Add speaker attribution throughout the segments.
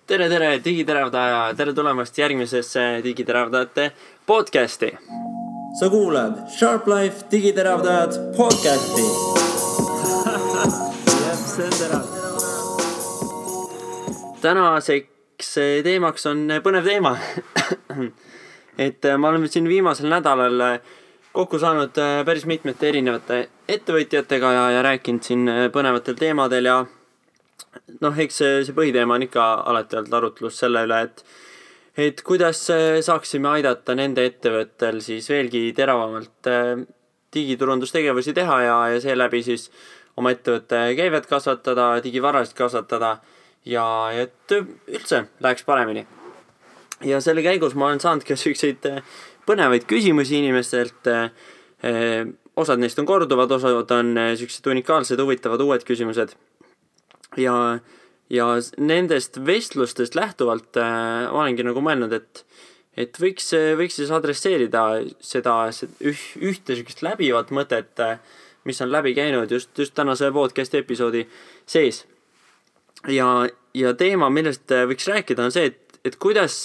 Speaker 1: Tere, digiteravdaja, tere tulemast järgmisesse digiteravdajate podcasti.
Speaker 2: Sa kuulad Sharp Life digiteravdajad podcasti.
Speaker 1: See on terav. Tänaseks teemaks on põnev teema. Ma olen siin viimasel nädalal kokku saanud päris mitmete erinevate ettevõtjatega ja rääkinud siin põnevatel teemadel ja eks see põhiteema on ikka alati olnud arutlus selle üle, et kuidas saaksime aidata nende ettevõttel siis veelgi teravamalt digiturundustegevusi teha ja seeläbi siis oma ettevõtte käivet kasvatada, digivarasid kasvatada ja et üldse läheks paremini. Ja selle käigus ma olen saanud ka selliseid põnevaid küsimusi inimestelt. Osad neist on korduvad, osad on sellised unikaalsed, huvitavad uued küsimused. Ja nendest vestlustest lähtuvalt olengi nagu mõelnud, et võiks siis adresseerida seda ühte sellist läbivat mõtet, mis on läbi käinud just tänase podcast episoodi sees. Ja teema, millest võiks rääkida, on see, et kuidas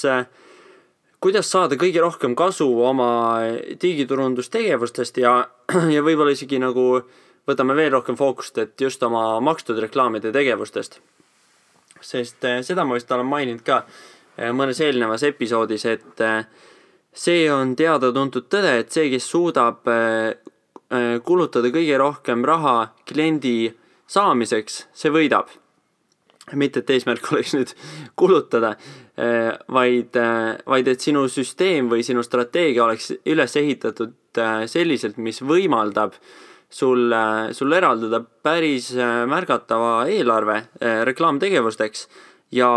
Speaker 1: saada kõige rohkem kasu oma digiturundustegevustest ja võib-olla isegi nagu võtame veel rohkem fookust, et just oma makstud reklaamide tegevustest. Sest seda ma vist olen maininud ka mõnes eelnevas episoodis, et see on teada-tuntud tõde, et see, kes suudab kulutada kõige rohkem raha kliendi saamiseks, see võidab. Mitte, et eesmärk oleks nüüd kulutada, vaid et sinu süsteem või sinu strateegia oleks üles ehitatud selliselt, mis võimaldab sul eraldada päris märgatava eelarve reklaamtegevusteks ja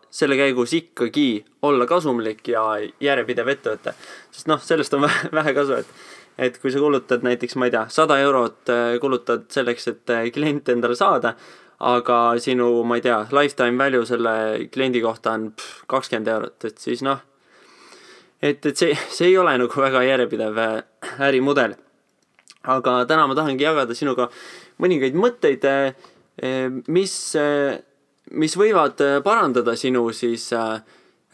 Speaker 1: selle käigus ikkagi olla kasumlik ja järjepidev ettevõte. Sest sellest on vähe kasu, et kui sa kulutad näiteks, 100 eurot kulutad selleks, et klient endale saada, aga sinu, lifetime value selle kliendi kohta on 20 eurot, et siis et see ei ole nagu väga järjepidev ärimudel. Aga täna ma tahangi jagada sinuga mõningaid mõtteid, mis võivad parandada sinu siis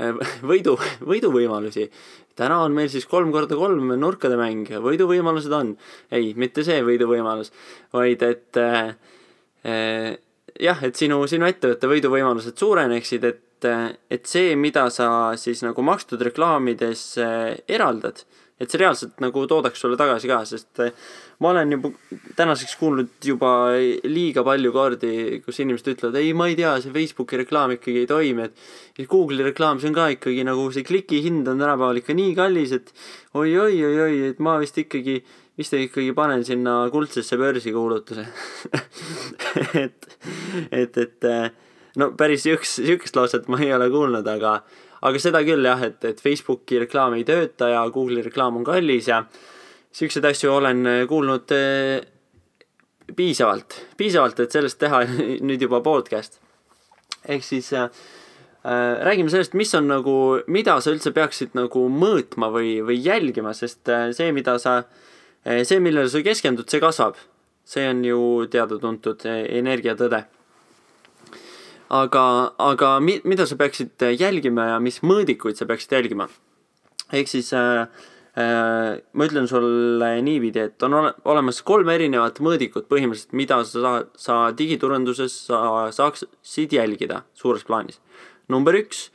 Speaker 1: võiduvõimalusi. Täna on meil siis 3x3 nurkade mäng, võiduvõimalused on. Ei, mitte see võiduvõimalus, vaid et sinu ettevõtte võiduvõimalused suureneksid, et see, mida sa siis nagu makstud reklaamides eraldad, et see reaalselt nagu toodaks sulle tagasi ka, sest ma olen juba tänaseks kuulnud juba liiga palju kordi, kus inimesed ütlevad, ei, ma ei tea, see Facebooki reklaam ikkagi ei toimi, et Google'i reklaam, see on ka ikkagi nagu see kliki hind on tänapäeval ikka nii kallis, et oi, et ma vist ikkagi panen sinna kuldsesse börsi kuulutuse. Päris sihukest lauset ma ei ole kuulnud, aga seda küll jah, et Facebooki reklaam ei tööta ja Google'i reklaam on kallis ja sihukesed asju olen kuulnud piisavalt, et sellest teha nüüd juba podcast. Ehk siis räägime sellest, mida sa üldse peaksid nagu mõõtma või jälgima, sest see, millele sa keskendud, see kasvab. See on ju teada-tuntud energiatõde. Aga mida sa peaksid jälgima ja mis mõõdikuid sa peaksid jälgima? Ehk siis ma ütlen sulle niipidi, et on olemas 3 erinevat mõõdikut põhimõtteliselt, mida sa digiturunduses saaksid jälgida suures plaanis. Number 1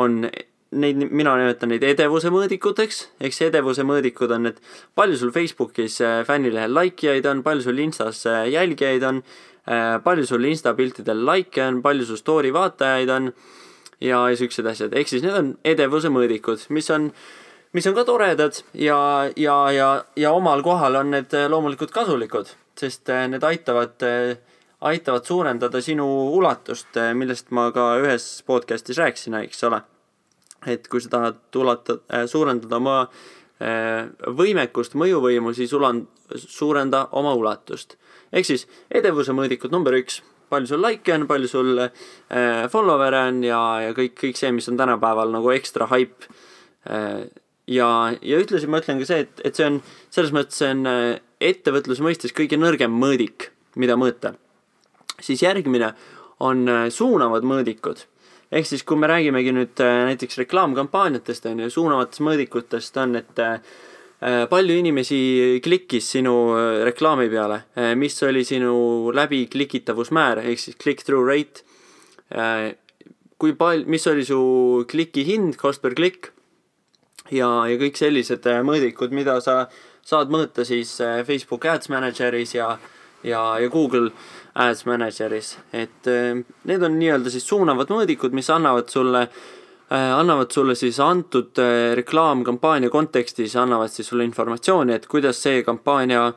Speaker 1: on mina nimetan neid edevuse mõõdikuteks, ehk see edevuse mõõdikud on, et palju sul Facebookis fännilehel likejaid on, palju sul Instas jälgijaid on, palju sul Insta-piltidel like on, palju sul story vaatajaid on ja sellised asjad. Ehk siis need on edevuse mõõdikud, mis on ka toredad ja omal kohal on need loomulikult kasulikud, sest need aitavad suurendada sinu ulatust, millest ma ka ühes podcastis rääkisin, eks ole. Et kui sa tahad suurendada oma võimekust, mõjuvõimu, siis suurenda oma ulatust. Ehk siis edevuse mõõdikud number 1, palju sul like on, palju sul follower on ja kõik see, mis on tänapäeval nagu ekstra hype. Ja ütlesi ma ütlen ka see, et see on selles mõttes see on ettevõtluse mõistes kõige nõrgem mõõdik, mida mõõta. Siis järgmine on suunavad mõõdikud. ehk siis kui me räägimegi nüüd näiteks reklaamkampaaniatest on ju, suunavatest mõõdikutest on, et palju inimesi klikkis sinu reklaami peale, mis oli sinu läbi klikitavusmäär ehk siis click-through rate, mis oli su kliki hind, cost per klikk ja kõik sellised mõõdikud, mida sa saad mõõta siis Facebook Ads Manageris ja Google Ads Manageris, et need on nii-öelda siis suunavad mõõdikud, mis annavad sulle siis antud reklaamkampaania kontekstis, annavad siis sulle informatsiooni, et kuidas see kampaania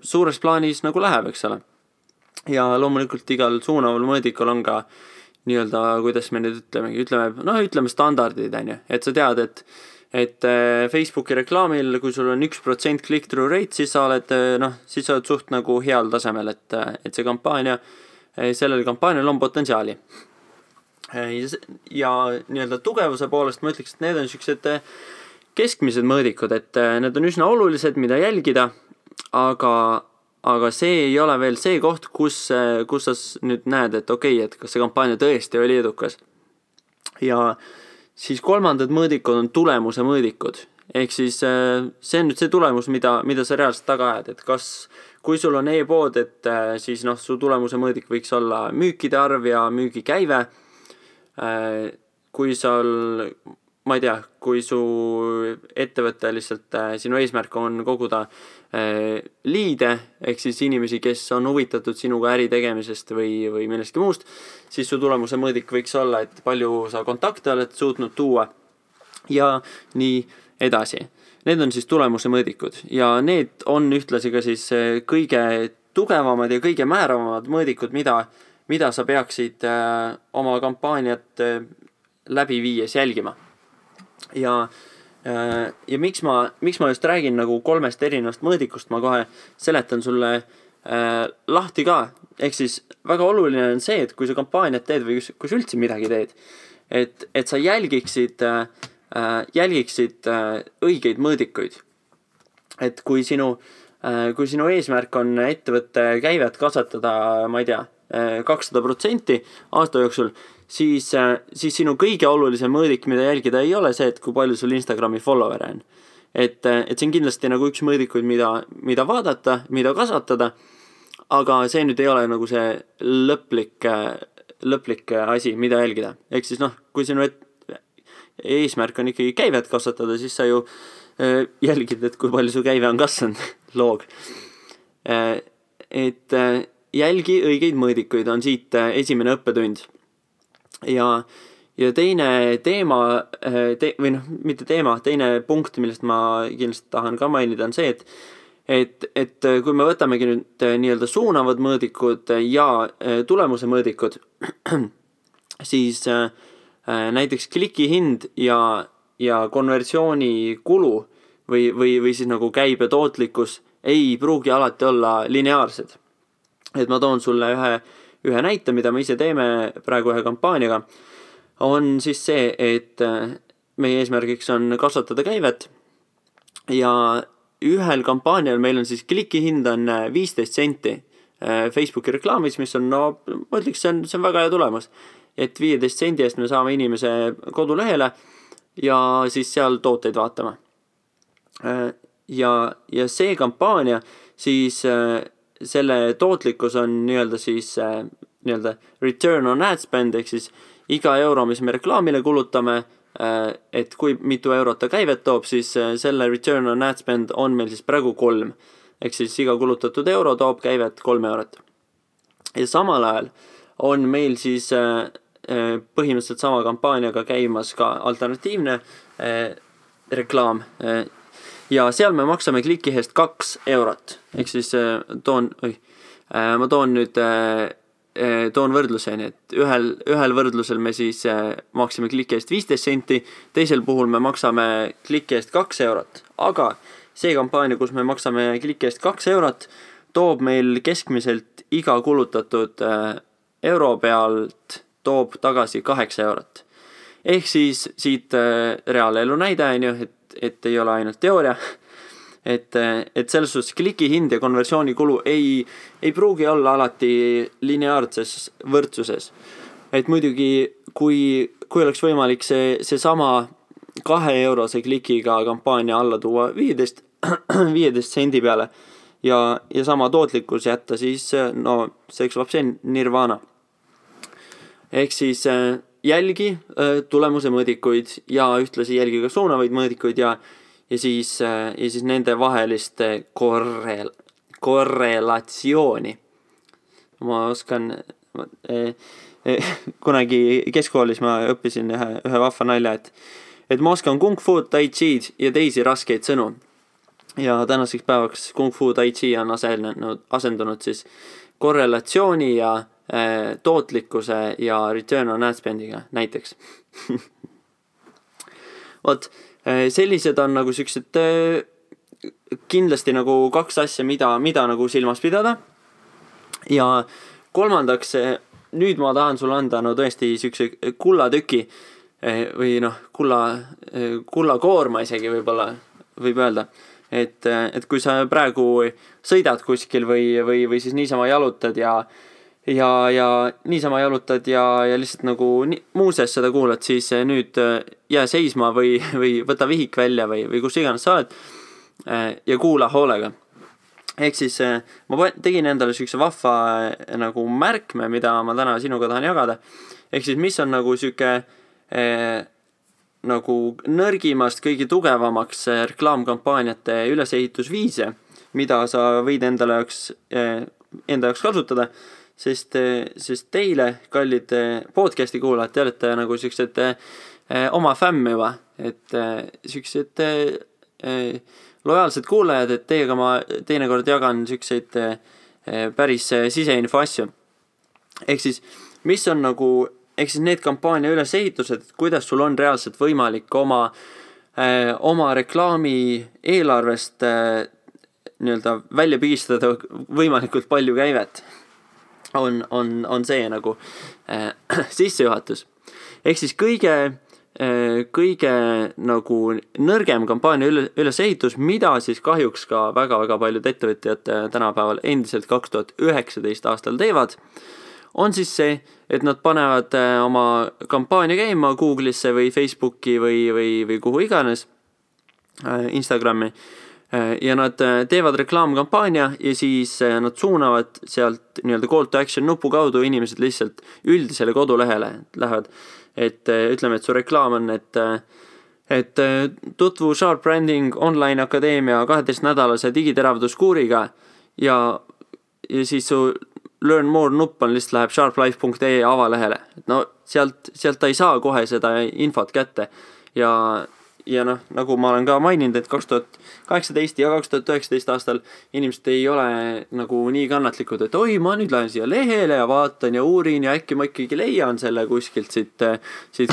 Speaker 1: suures plaanis nagu läheb, eks ole. Ja loomulikult igal suunaval mõõdikul on ka nii-öelda, kuidas me nüüd ütleme standardid, on ju, et sa tead, et Facebooki reklaamil, kui sul on 1% click-through rate, siis sa oled suht nagu heal tasemel, et see kampaania, sellel kampaanial on potentsiaali. Ja nii-öelda tugevuse poolest ma ütleks, et need on sellised keskmised mõõdikud, et need on üsna olulised, mida jälgida, aga see ei ole veel see koht, kus sa nüüd näed, et okei, et kas see kampaania tõesti oli edukas. Ja siis kolmandad mõõdikud on tulemuse mõõdikud. Ehk siis see on nüüd see tulemus, mida sa reaalselt taga ajad, et kui sul on e-pood, et siis su tulemuse mõõdik võiks olla müükide arv ja müügikäive. Kui su ettevõte lihtsalt, sinu eesmärk on koguda liide, ehk siis inimesi, kes on huvitatud sinuga äri tegemisest või millestki muust, siis su tulemuse mõõdik võiks olla, et palju sa kontakte oled suutnud tuua ja nii edasi. Need on siis tulemuse mõõdikud ja need on ühtlasi ka siis kõige tugevamad ja kõige määravamad mõõdikud, mida sa peaksid oma kampaaniat läbi viies jälgima. Ja miks ma just räägin nagu 3 erinevast mõõdikust, ma kohe seletan sulle lahti ka. Ehk siis väga oluline on see, et kui sa kampaaniat teed või kui sa üldse midagi teed, et sa jälgiksid õigeid mõõdikuid. Et kui sinu eesmärk on ettevõtte käivet kasvatada, ma ei tea, 200% aasta jooksul, siis sinu kõige olulisem mõõdik, mida jälgida ei ole see, et kui palju sul Instagrami follower on. Et see on kindlasti nagu üks mõõdikuid, mida vaadata, mida kasvatada, aga see nüüd ei ole nagu see lõplik asi, mida jälgida. Ehk siis kui sinu eesmärk on ikkagi käivet kasvatada, siis sa ju jälgid, et kui palju su käive on kasvanud, loog. Et jälgi õigeid mõõdikuid on siit esimene õppetund. Ja teine teema, teine punkt, millest ma kindlasti tahan ka mainida, on see, et kui me võtamegi nüüd nii-öelda suunavad mõõdikud ja tulemuse mõõdikud, siis näiteks kliki hind ja konversiooni kulu või siis nagu käibe tootlikkus ei pruugi alati olla lineaarsed. Et ma toon sulle ühe näite, mida me ise teeme praegu ühe kampaaniaga, on siis see, et meie eesmärgiks on kasvatada käivet ja ühel kampaanial meil on siis kliki hind on 15 senti Facebooki reklaamis, mis on, ma ütleks, see on väga hea tulemus, et 15 sendi eest me saame inimese kodulehele ja siis seal tooteid vaatama. Ja see kampaania siis selle tootlikkus on nii-öelda siis nii-öelda return on ad spend, ehk siis iga euro, mis me reklaamile kulutame, et kui mitu eurot ta käivet toob, siis selle return on ad spend on meil siis praegu 3. Ehk siis iga kulutatud euro toob käivet 3 eurot. Ja samal ajal on meil siis põhimõtteliselt sama kampaaniaga käimas ka alternatiivne reklaam. Ja seal me maksame kliki eest 2 eurot. Ehk siis ma toon võrdluseni, et ühel võrdlusel me siis maksime kliki eest 15 senti, teisel puhul me maksame kliki eest 2 eurot. Aga see kampaania, kus me maksame kliki eest 2 eurot, toob meil keskmiselt iga kulutatud euro pealt toob tagasi 8 eurot. Ehk siis siit reaalelu näide on ju, et ei ole ainult teooria, et selles suhtes kliki hind ja konversiooni kulu ei pruugi olla alati lineaarses võrdsuses. Et muidugi, kui oleks võimalik see sama 2-eurose klikiga kampaania alla tuua 15 sendi peale ja sama tootlikkus jätta, siis no see kõlab see nirvana. Ehk siis jälgi tulemuse mõõdikuid ja ühtlasi jälgi ka suunavaid mõõdikuid ja siis nende vahelist korrelatsiooni. Ma oskan kunagi keskkoolis ma õppisin ühe vahva nalja, et ma oskan kung fu, tai chi'd ja teisi raskeid sõnu. Ja tänaseks päevaks kung fu, tai chi on asendunud siis korrelatsiooni ja tootlikkuse ja return on ad spend'iga näiteks. Vot, sellised on nagu siuksed kindlasti nagu 2 asja, mida nagu silmas pidada. Ja kolmandaks, nüüd ma tahan sulle anda tõesti siukse kullatüki või kullakoorma isegi võib öelda. Et kui sa praegu sõidad kuskil või siis niisama jalutad ja niisama jalutad ja lihtsalt nagu muuseas seda kuulad, siis nüüd jää seisma või võta vihik välja või kus iganes sa oled ja kuula hoolega. Ehk siis ma tegin endale siukse vahva nagu märkme, mida ma täna sinuga tahan jagada. Ehk siis mis on nagu siuke nagu nõrgimast kõige tugevamaks reklaamkampaaniate ülesehitusviise, mida sa võid enda jaoks kasutada. Sest teile, kallid podcasti kuulajad, te olete nagu siuksed oma fämm juba, et siuksed lojaalsed kuulajad, et teiega ma teinekord jagan siukseid päris siseinfo asju. Ehk siis, mis on nagu, ehk siis need kampaania ülesehitused, kuidas sul on reaalselt võimalik oma reklaami eelarvest nii-öelda välja pigistada võimalikult palju käivet. On see nagu sissejuhatus. Ehk siis kõige nagu nõrgem kampaania ülesehitus, mida siis kahjuks ka väga-väga paljud ettevõtjad tänapäeval endiselt 2019 aastal teevad, on siis see, et nad panevad oma kampaania käima Google'isse või Facebooki või kuhu iganes, Instagrami, ja nad teevad reklaamkampaania ja siis nad suunavad sealt nii-öelda call to action nupu kaudu inimesed lihtsalt üldisele kodulehele lähevad. Et ütleme, et su reklaam on, et tutvu Sharp Branding Online Akadeemia 12-nädalase digiteravduskuuriga ja siis su learn more nupp on lihtsalt läheb sharplife.ee avalehele. No sealt ta ei saa kohe seda infot kätte ja noh, nagu ma olen ka maininud, et 2018 ja 2019 aastal inimesed ei ole nagu nii kannatlikud, et oi, ma nüüd lähen siia lehele ja vaatan ja uurin ja äkki ma ikkagi leian selle kuskilt siit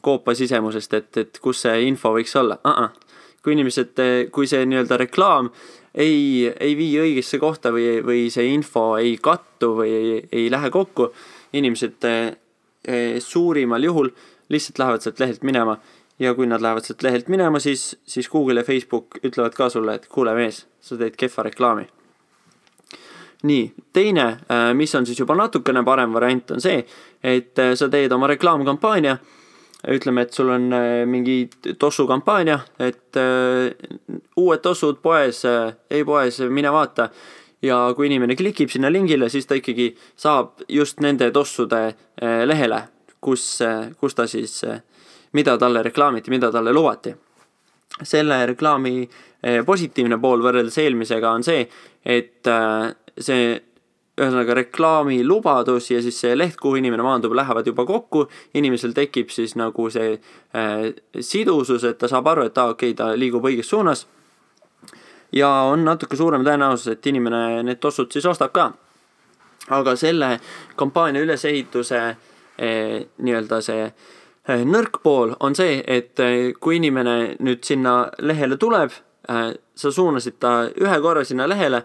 Speaker 1: koopa sisemusest, et kus see info võiks olla. Kui see nii-öelda reklaam ei vii õigesse kohta või see info ei kattu või ei lähe kokku, inimesed suurimal juhul lihtsalt lähevad sealt lehelt minema. Ja kui nad lähevad sealt lehelt minema, siis Google ja Facebook ütlevad ka sulle, et kuule mees, sa teed kehva reklaami. Nii, teine, mis on siis juba natukene parem variant, on see, et sa teed oma reklaamkampaania. Ütleme, et sul on mingi tossu kampaania, et uued tossud poes, mine vaata. Ja kui inimene klikib sinna lingile, siis ta ikkagi saab just nende tossude lehele, kus ta siis mida talle reklaamiti, mida talle lubati. Selle reklaami positiivne pool võrreldes eelmisega on see, et see ühesõnaga reklaami lubadus ja siis see leht, kuhu inimene maandub, lähevad juba kokku. Inimesel tekib siis nagu see sidusus, et ta saab aru, et okei, ta liigub õiges suunas. Ja on natuke suurem tõenäosus, et inimene need tossud siis ostab ka. Aga selle kampaania ülesehituse nii-öelda see nõrk pool on see, et kui inimene nüüd sinna lehele tuleb, sa suunasid ta ühe korra sinna lehele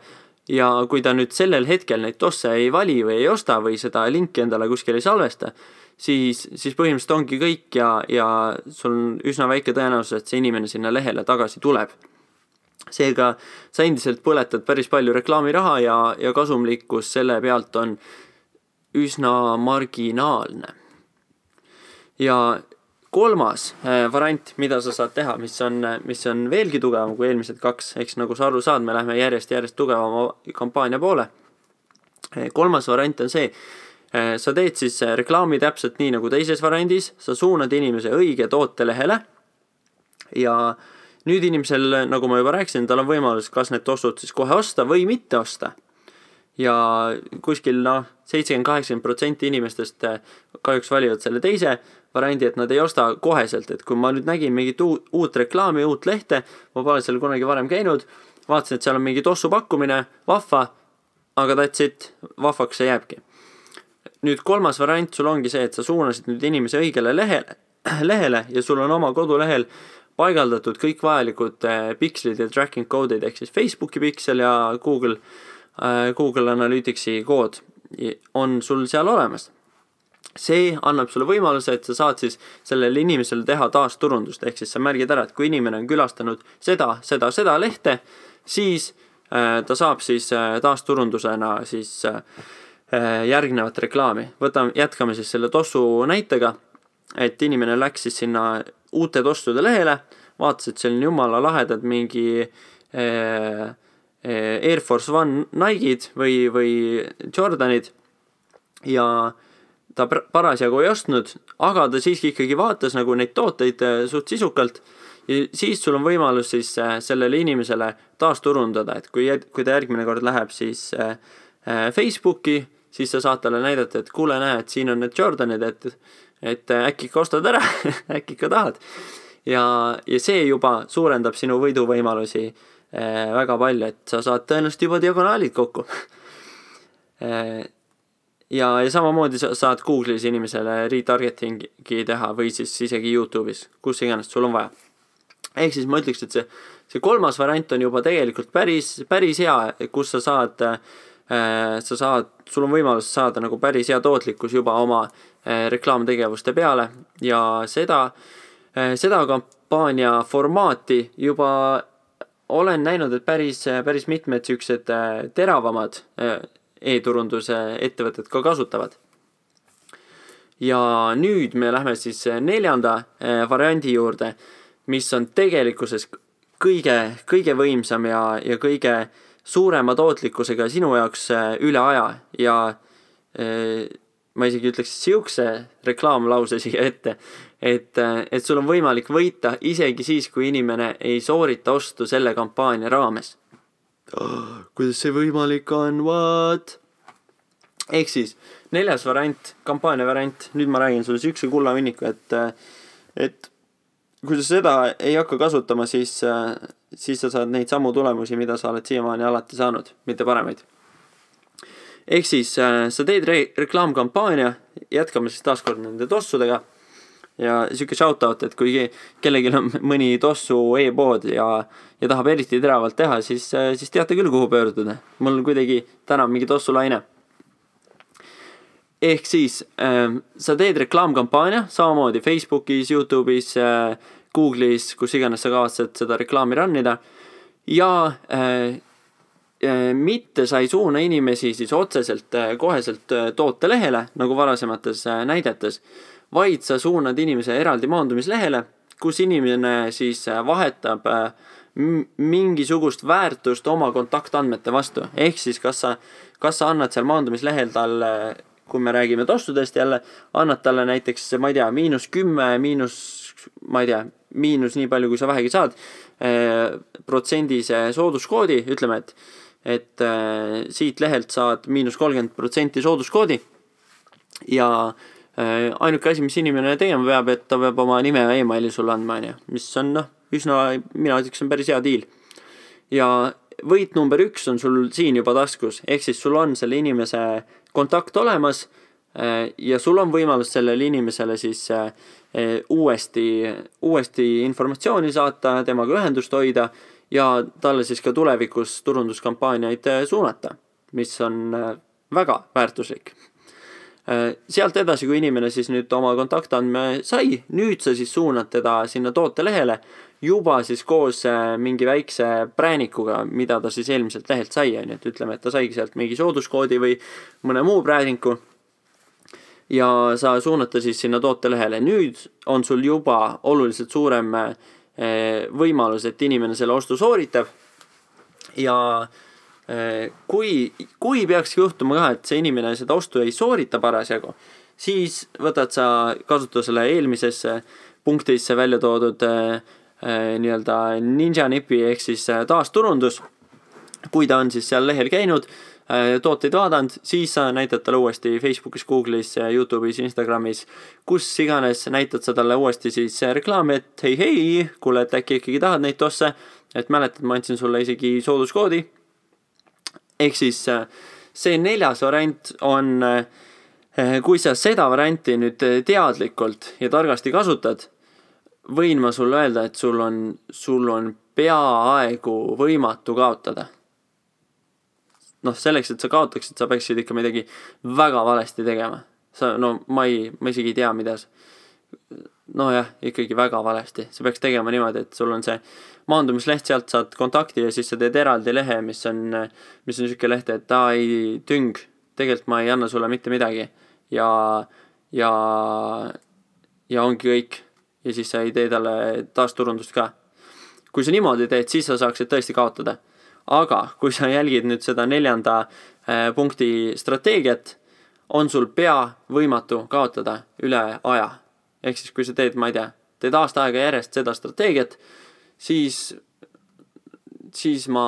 Speaker 1: ja kui ta nüüd sellel hetkel neid tosse ei vali või ei osta või seda linki endale kuskil ei salvesta, siis põhimõtteliselt ongi kõik ja sul on üsna väike tõenäosus, et see inimene sinna lehele tagasi tuleb. Seega sa endiselt põletad päris palju reklaamiraha ja kasumlikkus selle pealt on üsna marginaalne. Ja kolmas variant, mida sa saad teha, mis on veelgi tugevam kui eelmised kaks, eks nagu sa aru saad, me lähme järjest tugevama kampaania poole. Kolmas variant on see, sa teed siis reklaami täpselt nii nagu teises variandis, sa suunad inimese õige tootelehele ja nüüd inimesel, nagu ma juba rääkisin, tal on võimalus kas need tossud siis kohe osta või mitte osta. Ja kuskil 70-80% inimestest kahjuks valivad selle teise variandi, et nad ei osta koheselt, et kui ma nüüd nägin mingit uut reklaami, uut lehte, ma pole seal kunagi varem käinud, vaatasin, et seal on mingi tossu pakkumine, vahva, aga that's it, vahvaks see jääbki. Nüüd kolmas variant sul ongi see, et sa suunasid nüüd inimese õigele lehele ja sul on oma kodulehel paigaldatud kõik vajalikud pikslid ja tracking code'id, ehk siis Facebooki piksel ja Google Analyticsi kood on sul seal olemas. See annab sulle võimaluse, et sa saad siis sellele inimesele teha taasturundust, ehk siis sa märgid ära, et kui inimene on külastanud seda lehte, siis ta saab siis taasturundusena siis järgnevat reklaami. Jätkame siis selle tossu näitega, et inimene läks siis sinna uute tossude lehele, vaatas, et seal on jumala lahedad mingi Air Force One Nike'id või Jordanid ja ta parasjagu ei ostnud, aga ta siiski ikkagi vaatas nagu neid tooteid suht sisukalt ja siis sul on võimalus siis sellele inimesele taasturundada, et kui ta järgmine kord läheb siis Facebooki, siis sa saad talle näidata, et kuule näe, et siin on need Jordanid, et äkki ikka ostad ära, äkki ikka tahad. Ja see juba suurendab sinu võiduvõimalusi väga palju, et sa saad tõenäoliselt juba diagonaalid kokku. Ja samamoodi saad Google'is inimesele retargetingi teha või siis isegi YouTube'is, kus iganes sul on vaja. Ehk siis ma ütleks, et see kolmas variant on juba tegelikult päris hea, kus sul on võimalus saada nagu päris hea tootlikkus juba oma reklaamtegevuste peale ja seda kampaania formaati juba olen näinud, et päris mitmed siuksed teravamad e-turunduse ettevõtted ka kasutavad. Ja nüüd me lähme siis neljanda variandi juurde, mis on tegelikkuses kõige võimsam ja kõige suurema tootlikkusega sinu jaoks üle aja ja ma isegi ütleks siukse reklaamlause siia ette, et sul on võimalik võita isegi siis, kui inimene ei soorita ostu selle kampaania raames. Kuidas see võimalik on, what? Ehk siis, neljas variant, kampaania variant, nüüd ma räägin sulle siukse kullavinniku, et kui sa seda ei hakka kasutama, siis sa saad neid samu tulemusi, mida sa oled siiamaani alati saanud, mitte paremaid. Ehk siis, sa teed reklaamkampaania, jätkame siis taaskord nende tossudega ja siuke shoutout, et kui kellelgi on mõni tossu e-pood ja tahab eriti teravalt teha, siis teate küll, kuhu pöörduda. Mul kuidagi täna mingi tossulaine. Ehk siis, sa teed reklaamkampaania, samamoodi Facebookis, YouTube'is, Google'is, kus iganes sa kavatsed seda reklaami rannida ja mitte sa ei suuna inimesi siis otseselt koheselt tootelehele, nagu varasemates näidetes, vaid sa suunad inimese eraldi maandumislehele, kus inimene siis vahetab mingisugust väärtust oma kontaktandmete vastu. Ehk siis, kas sa annad seal maandumislehel talle, kui me räägime tossudest jälle, annad talle näiteks, ma ei tea, -10, miinus nii palju, kui sa vähegi saad, protsendise sooduskoodi, ütleme, et siit lehelt saad -30% sooduskoodi ja ainuke asi, mis inimene tegema peab, et ta peab oma nime ja e-maili sulle andma, mis on üsna, mina ütleks, on päris hea deal. Ja võit number 1 on sul siin juba taskus, ehk siis sul on selle inimese kontakt olemas ja sul on võimalus sellele inimesele siis uuesti informatsiooni saata, temaga ühendust hoida ja talle siis ka tulevikus turunduskampaaniaid suunata, mis on väga väärtuslik. Sealt edasi, kui inimene siis nüüd oma kontaktandme sai, nüüd sa siis suunad teda sinna tootelehele juba siis koos mingi väikse präänikuga, mida ta siis eelmiselt lehelt sai, et ütleme, et ta saigi sealt mingi sooduskoodi või mõne muu prääninku. ja sa suunata siis sinna tootelehele. Nüüd on sul juba oluliselt suurem võimalus, et inimene selle ostu sooritab ja kui peakski juhtuma ka, et see inimene seda ostu ei soorita parasjagu, siis võtad sa kasutusele eelmisesse punktisse välja toodud nii-öelda Ninja Nipi ehk siis taasturundus. Kui ta on siis seal lehel käinud, tooteid vaadanud, siis sa näitad talle uuesti Facebookis, Google'is, YouTube'is, Instagramis, kus iganes näitad sa talle uuesti siis reklaami, et hei, kuule, et äkki ikkagi tahad neid tosse, et mäletad, ma andsin sulle isegi sooduskoodi. Ehk siis see 4. variant on, kui sa seda varianti nüüd teadlikult ja targasti kasutad, võin ma sulle öelda, et sul on peaaegu võimatu kaotada. Selleks, et sa kaotaksid, sa peaksid ikka midagi väga valesti tegema. Ma isegi ei tea, mida. Ikkagi väga valesti. Sa peaks tegema niimoodi, et sul on see maandumisleht, sealt saad kontakti ja siis sa teed eraldi lehe, mis on selline leht, et ei tüng, tegelikult ma ei anna sulle mitte midagi. Ja ongi kõik. Ja siis sa ei tee talle taasturundust ka. Kui sa niimoodi teed, siis sa saaksid tõesti kaotada. Aga kui sa jälgid nüüd seda 4. punkti strateegiat, on sul pea võimatu kaotada üle aja. Ehk siis kui sa teed, ma ei tea, teed aasta aega järjest seda strateegiat, siis ma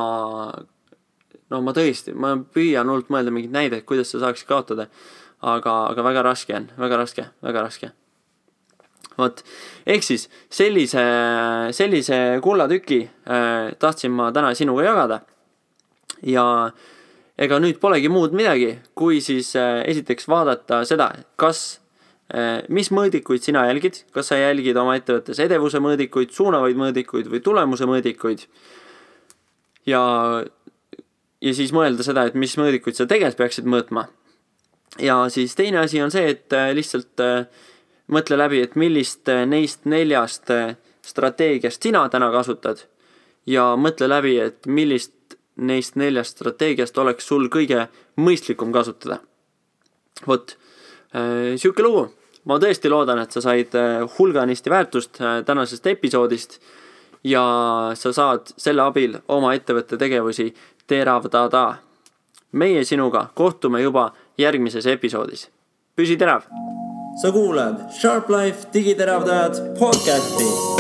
Speaker 1: tõesti, ma püüan hullult mõelda mingid näideid, kuidas sa saaksid kaotada. Aga väga raske on, väga raske. Ehk siis sellise kullatüki tahtsin ma täna sinuga jagada ja ega nüüd polegi muud midagi, kui siis esiteks vaadata seda, mis mõõdikuid sina jälgid, kas sa jälgid oma ettevõttes edevuse mõõdikuid, suunavaid mõõdikuid või tulemuse mõõdikuid ja siis mõelda seda, et mis mõõdikuid sa tegelikult peaksid mõõtma. Ja siis teine asi on see, et lihtsalt mõtle läbi, et millist neist 4 strateegiast sina täna kasutad ja mõtle läbi, et millist neist 4 strateegiast oleks sul kõige mõistlikum kasutada. Siuke lugu. Ma tõesti loodan, et sa said hulganisti väärtust tänasest episoodist ja sa saad selle abil oma ettevõtte tegevusi teravdada. Meie sinuga kohtume juba järgmises episoodis. Püsi terav!
Speaker 2: Sa kuulad Sharp Life digiteravdajad podcasti.